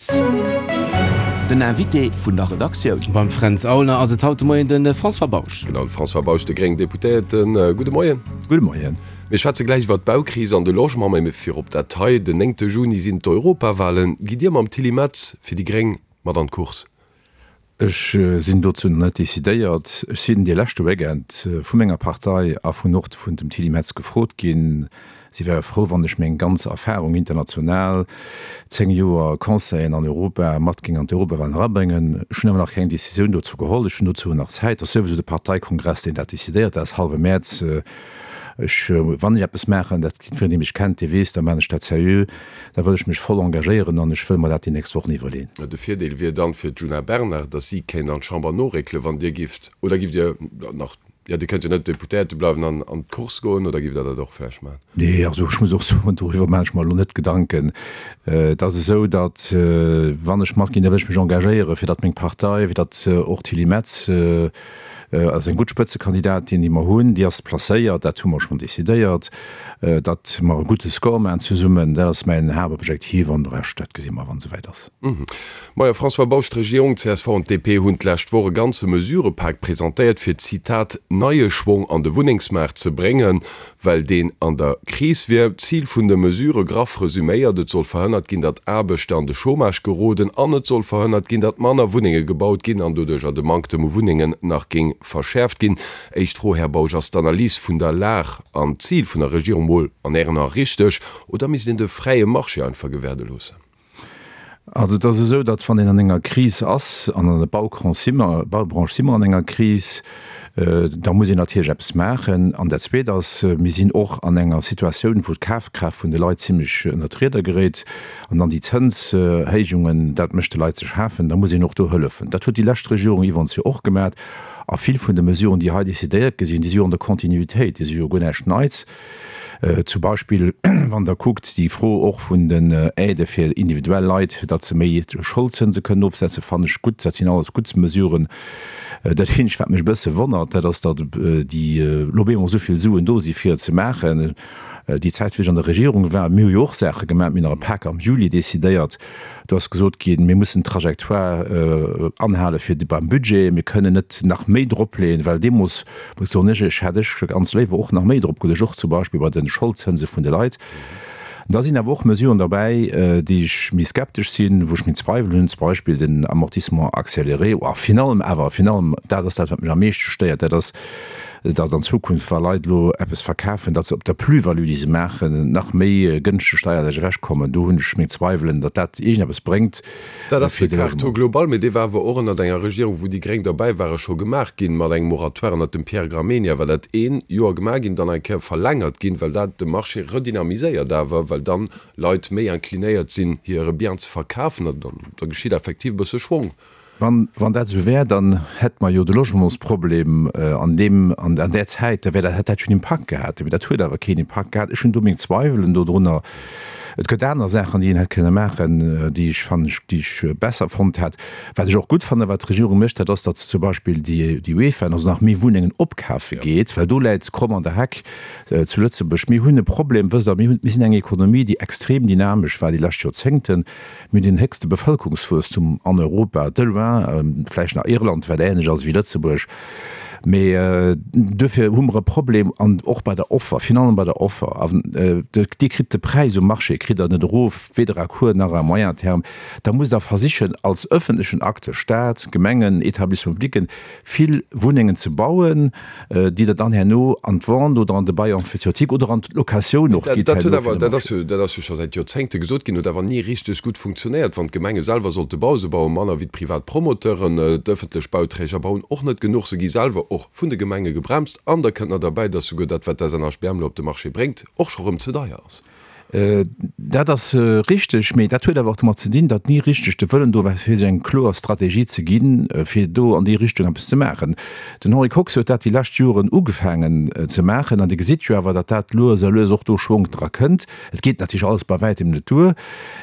12. Den Invité vun der Redaktioun. Beim Fränz Aulner ass et haut de Moien de François Bausch. Genau, de François Bausch, de gréngen Deputéierten. Gudde Moien. Gudde Moien. Mir schwätze gläich iwwer d'Baukris an de Logement, mä virop dat hei, Den néngte Juni sinn d'Europawahlen. Gitt Dir mam Tilly Metz fir déi gréng mat an d'Course? Ech sinn dozou nach net decidéiert. Ech sinn dee leschte Weekend vu menger Partei a vun och vun dem Tilly Metz gefrot ginn. Si wäre frou, wann ech meng ganz Erfahrung international, 10 Joer Conseillen an Europa, mat géing an d'Europawahlen erabréngen. Ech hunn awer nach keng Decisioun dozou geholl. Ech hunn dozou nach Zäit. Et ass souwisou de Parteikongress, deen dat decidéiert. Dat ass hallwe Mäerz. Ech, wann ech eppes maachen, dat jiddwereen, dee mech kennt, dee weess, da maachen ech dat seriö. Da wëll ech mech voll engagéieren an ech wëll mer dat déi nächst Wochen iwwerleen. De Virdeel wier dann fir d'Djuna Bernard, datt si kéint an d'Chamber noréckelen, wann Dir gifft, oder gifft Dir nach, jo Dir kënnt jo net Deputéierte bleiwen an an d'Course goen, oder gifft Der dat och vläicht maachen? Nee, also ech muss och soen, doriwwer maachen ech mer elo net Gedanken. Et ass esou, datt wann ech matginn, da wëll ech mech engagéieren, fir datt meng Partei, fir datt och d'Tilly Metz, ass eng gutt Spëtzekandidatin, déi mer hunn. Déi ass placéiert, dat hu mer schonn decidéiert, datt mer e gudde Score maachen zesummen. Dat ass mäin Haaptobjektiv an de Rescht, dat gesi mer, wann et esouwäit ass. Majo, François Bausch, d'Regierung, csv an d'DP hunn d'lescht Woch e ganze Mesurëpak presentéiert, fir, Zitat, neie Schwong an de Wunnengsmaart ze bréngen. well deen an der Kris wier. D'Zil vun de Mesurë, graff resuméiert, Et soll verhënnert ginn, datt Aarbechter an de Chômage geroden an et soll verhënnert ginn, datt manner Wunnenge gebaut ginn an doduercher de Manktem u Wunnengen nach géing verschäerft ginn. Éischt Fro, Här Bausch, Ass d'Analys vun der Lag an d'Zil vun der Regierung mol an Ären Ae richteg oder misst een de fräie Marché einfach gewäerde loossen? Also et ass esou, datt wann een an enger Kris ass, an an der Baubranche si mer, Baubranche si mer an enger Kris, da muss een natierlech eppes maachen. An dat Zweet ass, mir sinn och an enger Situatioun, wou d'Kafkraaft vun de Leit zimlech ënnert d'Rieder geréit. An dann déi Zënshéijungen, dat mécht de Leit ze schafen. Da muss een och do hëllefen. Dat huet déi lescht Regierung iwwerens jo och gemaach. A vill vun de Mesuren, déi hei decidéiert gi sinn, déi si jo an der Continuitéit, déi si jo guer näischt Neits. Zum Beispill, wann Der kuckt, déi Fro och vun den Aidë fir individuell Leit, fir datt se méi Scholdzënse kënnen ofsetzen, fannen ech gutt. Dat sinn alles gutt Mesuren. Dat eenzegt, wat mech e bësse wonnert, dat ass, datt déi elo op eemol esou vill Suen do si fir et ze maachen. Déi Zäit, wéi ech an der Regierung war, mir hu jo och Saache gemaach, mir hunn nach e Pak am Juli decidéiert, Do ass gesot ginn, mir mussen d'Trajectoire anhale fir beim Budget, mir kënnen net nach méi dropleeën, well deemools, muss soen ech, ech hätt ech ganz léiwer och nach méi drop geluecht, och zum Beispill bei de Scholdzënse vun de Leit. Da sinn awer och Mesuren derbäi, déi ech méi skeptesch sinn, wou ech meng Zweiwel hunn, zum Beispill den Amortissement accéléré, a virun allem awer, virun allem, dat ass dat, wat mech am meeschte stéiert, dat ass, datt an Zukunft, wa Leit elo eppes verkafen, datt se op der Plus-value, déi se maachen, nach méi gënschteg steierlech ewechkommen. Do hunn ech meng Zweiwelen, datt dat iergendeppes bréngt. Dat ass de Quart taux global, mee dee war awer och ënnert enger Regierung, wou déi Gréng derbäi waren, scho gemaach ginn, mat engem Moratoire ënnert dem Pierre Gramegna war dat ee Joer gemaach ginn, dann eng Kéier verlängert ginn, well dat de Marché redynamiséiert awer, well dann Leit méi inclinéiert sinn, hire Bien ze verkafen an da geschitt effektiv e bësse Schwong. Wann dat esou wär, dann hätte mer jo de Logementsproblem an deem, an där Zäit, da wär dat, hätt dat jo en Impakt gehat. Mee dat huet awer keen Impakt gehat. Ech hunn do meng Zweiwelen dodrunner. Et gëtt aner Saachen, déi een hätt kënne maachen, déi ech fannen, déi ech besser fonnt hätt. Wat ech och gutt fannen, wat d'Regierung mécht, dat ass, datt se zum Beispill déi, déi UEFA, also nach méi Wunnengen opkafe geet, well do läit d'Kromm an der Heck zu Lëtzebuerg. Mir hunn e Problem, wësst Der, mir hunn, mir sinn eng Ekonomie, déi extrem dynamesch war déi lescht Joerzéngten. Mir hunn den héchste Bevëlkerungswuesstum an Europa, de loin, vläicht nach Irland, wat änlech ass wéi Lëtzebuerg. Mee duerfir hu mer e Problem an och bei der Offer, virun allem bei der Offer. An Dir kritt de Präis um Marché kritt Der net erof, weder à court nach à moyen terme. Da musst Der versichen als öffentlechen Acteur, Stat, Gemengen, Établissements publics, vill Wunnengen ze bauen, déi Der dann herno an d'Vente oder an de Bail emphytéotique oder an d'Locatioun och gitt. Dat huet awer, dat ass jo, dat ass jo scho säit Joerzéngte gesot ginn, huet awer ni richteg gutt funktionéiert. Wann d'Gemenge selwer sollte bauen, se baue manner wéi d'privat Promoteuren, d'ëffentlech Bauträger bauen och net genuch, se gi selwer och vun de Gemenge gebremst an da kënnt nach derbäi, dass souguer dat, wat d'SNHBM elo op de Marché bréngt, och scho rëm ze deier ass. Dat ass richteg, mee dat huet awer och domat ze dinn, datt ni richteg de Wëllen do war, fir sech eng kloer Strategie ze ginn, fir do an déi Richtung eppes ze maachen. Den Henri Kox huet dat déi lescht Joren ugefaangen ze maachen an Dir gesitt jo awer, datt dat lues a lues och do Schwonk dra kënnt. Et geet natierlech alles bei wäitem net duer,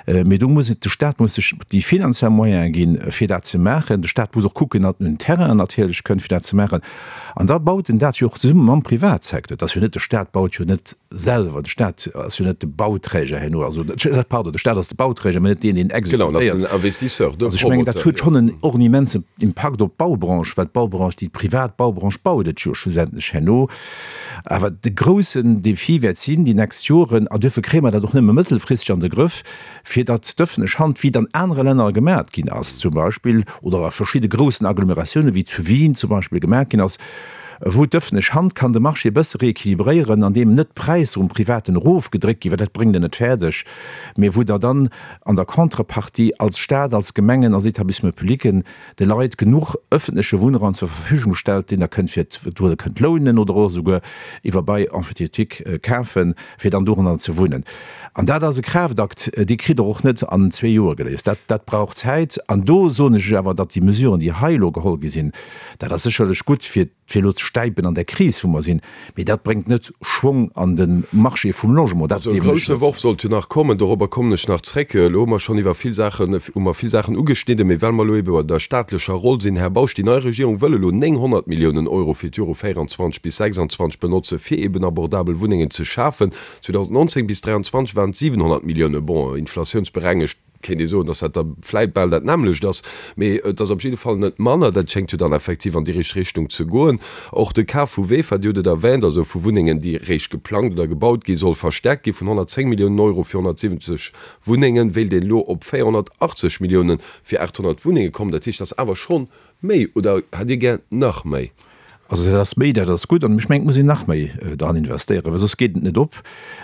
mee do muss et, de Stat muss sech déi finanziell Moyene ginn, fir dat ze maachen. De Stat muss och kucken, datt en un Terrainen natierlech kënnt, fir dat ze maachen. An da baut en dat jo och zesumme mam Privatsecteur. Et ass jo net, de Stat baut jo net selwer, de Stat ass jo net de Bau. Bauträger herno. Also, pardon, de Staat ass de Bauträger, mä net deen, deen exekutéiert. Genau, en ass den Investisseur, de Promoteur. Also ech mengen, dat huet schonn en, och en immensen Impakt op d'Baubranche, well d'Baubranche, déi privat Baubranche baut et jo schlussendlech herno. Awer de groussen Défi wäert sinn déi nächst Joren, an duerfir kréie mer dat och nëmme mëttelfristeg an de Grëff, fir datt d'ëffentlech Hand, wéi et an anere Länner gemaat ginn ass zum Beispill, oder a verschidde groussen Agglomeratiounen, wéi zu Wien zum Beispill gemaat ginn ass, wou d'ëffentlech Hand kann de Marché e bësse rééquilibréieren, andeem net d'Präisser um Privaten erofgedréckt ginn, well dat bréngt en net fäerdeg, mee wou Der dann an der Contrepartie als Stat, als Gemengen, als Établissements publics de Leit genuch ëffentleche Wunnraum zur Verfügung stellt, deen Der kënnt fir, wou Der kënnt lounen oder och esouguer iwwer Bail emphytéotique kafen, fir dann doranner ze wunnen. An dat ass e Kraaftakt, dee kritt Der och net an zwee Joer geléist. Dat, dat brauch Zäit. An do soen ech lech awer, datt déi Mesuren, déi hei elo geholl gi sinn, dat ass sécherlech gutt, fir, fir elo ze stäipen an där Kris, wou mer sinn, mee dat bréngt net Schwong an de Marché vum Logement. Dat Also e gleewen ech grousse net. Worf sollt jo nach kommen, dorobber kommen ech nach zréck. Elo hu mer schonn iwwer vill Saachen, hu mer vill Saachen ugeschnidden, mee well mer elo ebe bei der staatlecher Roll sinn, Här Bausch, déi nei Regierung wëll elo 900 Milliounen Euro fir d'Jore 24 bis 26 benotze fir eben abordabel Wunnengen ze schafen. 2019 bis 2023 waren et 700 Milliounen, bon, inflatiounsberengegt kéint ee soen, datt dat da vläit bal dat nämmlecht ass, mee et ass op jidde Fall net manner. Dat schéngt jo dann effektiv an déi richteg Richtung ze goen. Och de Kaf vu VEFA, Dir hutt et erwähnt, also vu Wunnengen, déi réischt geplangt oder gebaut ginn, soll verstärkt gi vun 110 Milliounen Euro fir 170 Wunnengen, wéilt een elo op 480 Milliounen fir 800 Wunnenge kommen. Dat heescht, dat ass awer schonn méi, oder hätt Dir gär nach méi? Also dat ass méi, dat ass gutt. An ech mengen, et muss een nach méi dran investéieren, well soss geet et net op.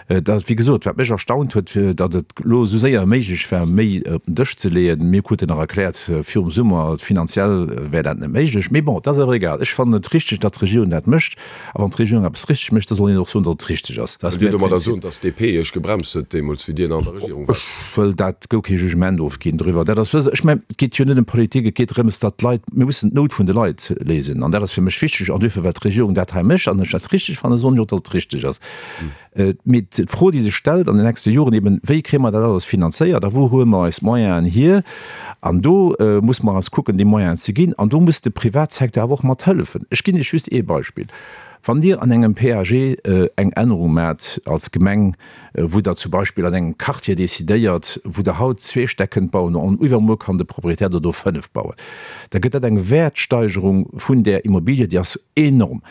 Dat, wéi gesot, wat mech erstaunt huet, datt et elo esou séier méiglech war, méi op den Dësch ze leeën. Mir kruten nach erkläert virum Summer, finanziell wär dat net méiglech. Mee bon, et ass awer egal. Ech fannen et richteg, datt d'Regierung dat mécht. A wann d'Regierung eppes richteg mécht, da soll een och soen, datt et richteg ass. Dat ass Wëllt Dir mäi domadder Prinzip. soen, datt d'DP Iech gebremst huet deemools, wéi Dir nach an der Regierung waart? Ech wëll dat guer kee Jugement ofginn doriwwer. Dat ass, wësst Der, ech mengen, et geet jo net ëm Politik, et geet drëms, datt d'Leit, mir mussen d'Nout vun de Leit léisen. An dat ass fir mech wichteg. An duerfir, well d'Regierung dat hei mécht an ech dat richteg fannen, soen ech och, datt et richteg ass. Mee d'Fro, déi sech stellt an den nächste Joren eben, Wéi kréie mer dat alles finanzéiert a wou huele mer eis d'Moyenen hier? An do muss mer eis kucken, déi Moyenen ze ginn. An do muss de Privatsecteur awer och mat hëllefen. Ech ginn Iech just ee Beispill. Wann Dir an engem PAG eng Ännerung maacht als Gemeng, wou Der zum Beispill an engem Quartier decidéiert, wou Der haut zwee Stäck kënnt bauen an iwwermuer kann de Proprietär der do fënnef bauen, da gëtt dat eng Wäertsteigerung vun där Immobilie, déi ass enorm.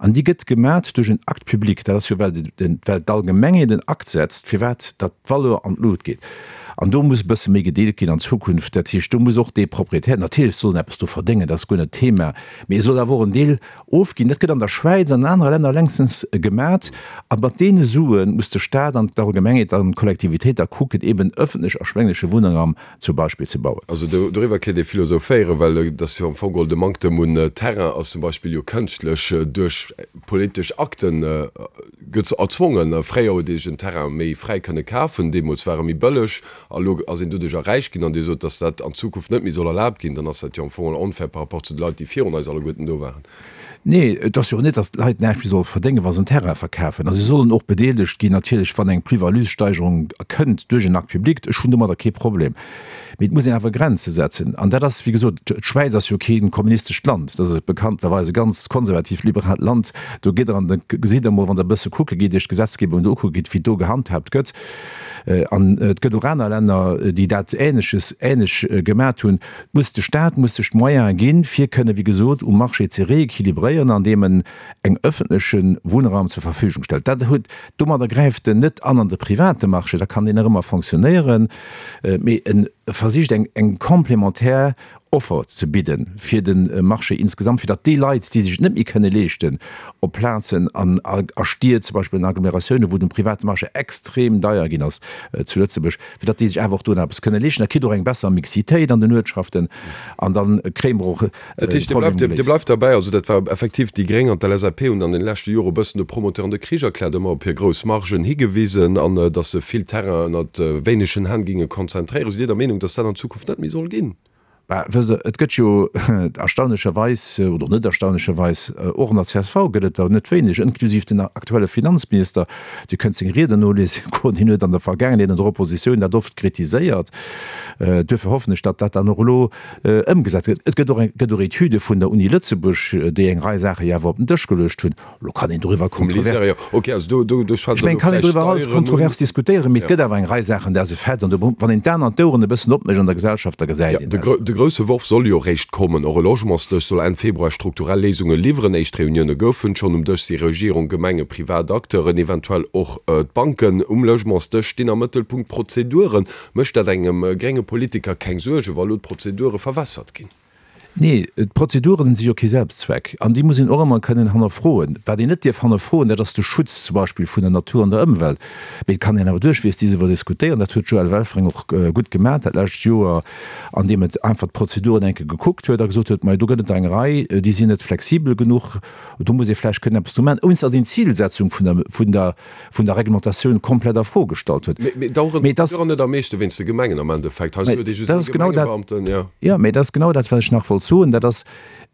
An déi gëtt gemat duerch en Acte public. Dat ass jo, well well d'Allgemengheet en Akt setzt, firwat datt d'Valeur an d'Lut geet. An do muss e bësse méi gedeelt ginn an Zukunft. Dat heescht, do muss och dee Proprietär, natierlech soll en eppes do verdéngen, dat ass guer net d'Thema, mee e soll awer och en Deel ofginn. Dat gëtt an der Schwäiz an an anere Länner längstens gemat. A mat deene Sue muss de Stat an d'Allgemengheet an d'Kollektivitéit da kucken, eben ëffentlech erschwéngleche Wunnraum zum Beispill ze bauen. Also doriwwer kéint ee philosophéieren, well et ass jo am Fong geholl de Manktem un Terrain ass zum Beispill jo kënschtlech duerch politesch Akten gëtt erzwongen. Fréier huet ee sech en Terrain méi fräi kënne kafen, deemools war e méi bëlleg a lo ass een doduercher räich ginn. An Dir sot, datt dat an Zukunft net méi soll erlaabt ginn, dann ass dat jo am Fong geholl onfair par rapport zu de Leit, déi virun eis alleguerten do waren. Nee, et ass jo och net, datt d'Leit näischt méi solle verdéngen, wa se en Terrain verkafen. A si sollen och bedeelegt ginn natierlech, wann eng Plus-value-Steigerung kënnt duerch en Acte public. Ech hunn domadder kee Problem. Mee et muss een awer Grenze setzen. An dat ass, wéi gesot, d'Schwäiz ass jo kee kommunistescht Land, dat ass bekannterweis e ganz konservativt, liberaalt Land. Do gitt Der an da gesitt Der emol, wann Der e bësse kucke gitt, Iech d'Gesetzgebung do ukucke gitt, wéi do gehandhaabt gëtt. An et gëtt och aner Länner, déi dat Ähnleches, ähnlech gemat hunn. Muss de Stat muss sech d'Moyene ginn, fir kënne wéi gesot um Marché ze rééquilibréieren, andeem en eng öffentleche Wunnraum zur Verfügung stellt. Dat huet, domadder gräift en net an an de private Marché, da kann deen nach ëmmer fonctionnéieren, mee e versicht eng eng complémentaire Offer ze bidde fir de Marché insgesamt, fir datt déi Leit, déi sech et net méi kënne leeschten, op Plazen an a Stied, zum Beispill an Agglomeratiounen, wou de private Marché extrem deier ginn ass zu Lëtzebuerg, fir datt déi sech awer och do nach eppes kënne leeschten. Da kritt Der och eng besser Mixitéit an den Uertschaften an da kréie mer och Dat heescht, Dir bleift, Dir bleift derbäi, also dat war effektiv, déi Gréng an d'LSAP hunn an den leschte Jore e bëssen de Promoteuren de Krich erkläert, ëmmer op hir grouss Margen higewisen an datt se vill Terrain ënnert wéinegen Hänn géinge konzentréieren. Sidd Dir der Meenung, datt dat an Zukunft net méi soll ginn? Bah, wësst Der, et gëtt jo erstaunlecherweis, oder net erstaunlecherweis, och an der csv gëtt et der net wéineg, inklusiv den aktuelle Finanzminister, Dir kënnt seng Rieden noliesen goen, hien huet an der Vergaangenheet an der Oppositioun dat oft kritiséiert. Duerfir hoffen ech, datt dat dann och elo ëmgesat gëtt. Et gëtt och eng, gëtt och Etüde vun der Uni Lëtzebuerg, déi eng Rei Saache jo awer op den Dësch geluecht hunn. Elo kann een doriwwer kontrovers. Ech mengen, kann een doriwwer alles kontrovers diskutéieren, mee et gëtt awer eng Rei Saachen, dat ass e Fait. An do, wann een d'Aen an d'Oueren e bëssen opmécht an der Gesellschaft, da gesäit een dat. De grousse Worf soll jo eréischt kommen. Och e Logementsdësch soll Enn Februar strukturell Léisunge liwweren. Éischt Reunioune goufen schonn. Um Dësch si Regierung, Gemenge, privat Acteuren, eventuell och d'Banken. Um Logementsdësch stinn am Mëttelpunkt d'Prozeduren. Mécht dat engem grénge Politiker keng Suergen, wa lo d'Prozedure verwässert ginn? Nee, d'Prozeduren si jo kee Selbstzweck an déi muss een och ëmmer kënnen hannerfroen. Wat een net dierf hannerfroen, dat ass de Schutz zum Beispill vun der Natur an der Ëmwelt. Mee et kann een awer duerchweegs disiwwer diskutéieren. Dat huet d'Joëlle Welfring och gutt gemaach dat lescht Joer, andeem et einfach d'Prozeduren eng Kéier gekuckt huet a gesot huet, Majo, do gëtt et der eng Rei, déi sinn net flexibel genuch, do muss ee vläicht kënnen eppes dru maachen, ouni datt een d'Zilsetzung vun der, vun der, vun der Reglementatioun komplett a Fro gestallt huet. Mee daueren Mee das, net am meeschte wéinst de Gemengen am Endeffekt. Heiansdo huet ee just ee Gemengebeamten, jo. Jo, mee dat ass genau dat, wat ech nach wollt soen. Dat ass,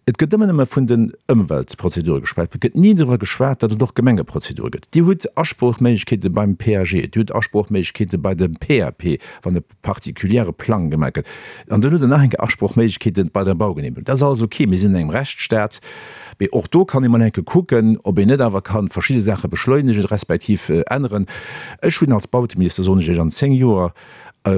et gëtt ëmmer nëmme vun den Ëmweltprozedure geschwat. Et gëtt ni driwwer geschwat, datt et och Gemengeprozedure gëtt. Dir hutt Asproochméiglechkeete beim PAG, Dir hutt Asproochméiglechkeete bei dem PAP, wann e particuliere Plang gemaach gëtt. An dann hutt Der nach eng Kéier Asprochméiglechkeete bei der Baugenehmegung. Dat ass alles ok, mir sinn an engem Rechtsstaat, mee och do kann ee mol eng Kéier kucken, ob een net awer ka verschidde Saache beschleunegen, respektiv änneren. Ech hunn als Bauteminister, soen ech Iech, an 10 Joer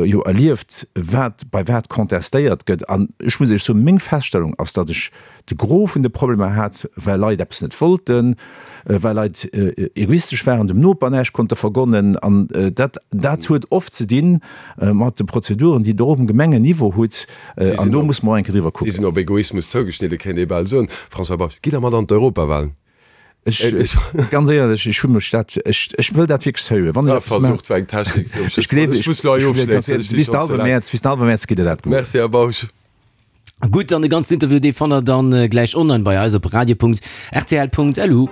jo erlieft, wat bei wat contestéiert gëtt. An ech muss Iech soen, meng Feststellung ass, datt ech de Gros vun de Problemer hat, well Leit eppes net wollten, well Leit egoistesch waren, dem Noper näischt konnte vergonnen. An dat, dat huet oft ze di mat de Prozeduren, déi Der och um Gemengenniveau hutt. An do muss mer och eng Kéier driwwer kucken. Déi sinn op Egoismus zougeschnidden, kéint ee bal soen. François Bausch, gitt Der mat an d'Europawahlen? Ech, ganz éierlech, ech hu mech dat, ech, ech wëll dat wierklech seriö. Wann ech eppes maachen. Versucht war eng Technik fir um Ech gleewen, ech muss elo hei ofschléissen, ech si schonn ze laang. Bis den hallwe Mäerz gitt Der dat gutt. Merci, Här Bausch. Gutt, an de ganzen Interview, dee fannt der dann gläich online bei eis op radio.rtl.lu.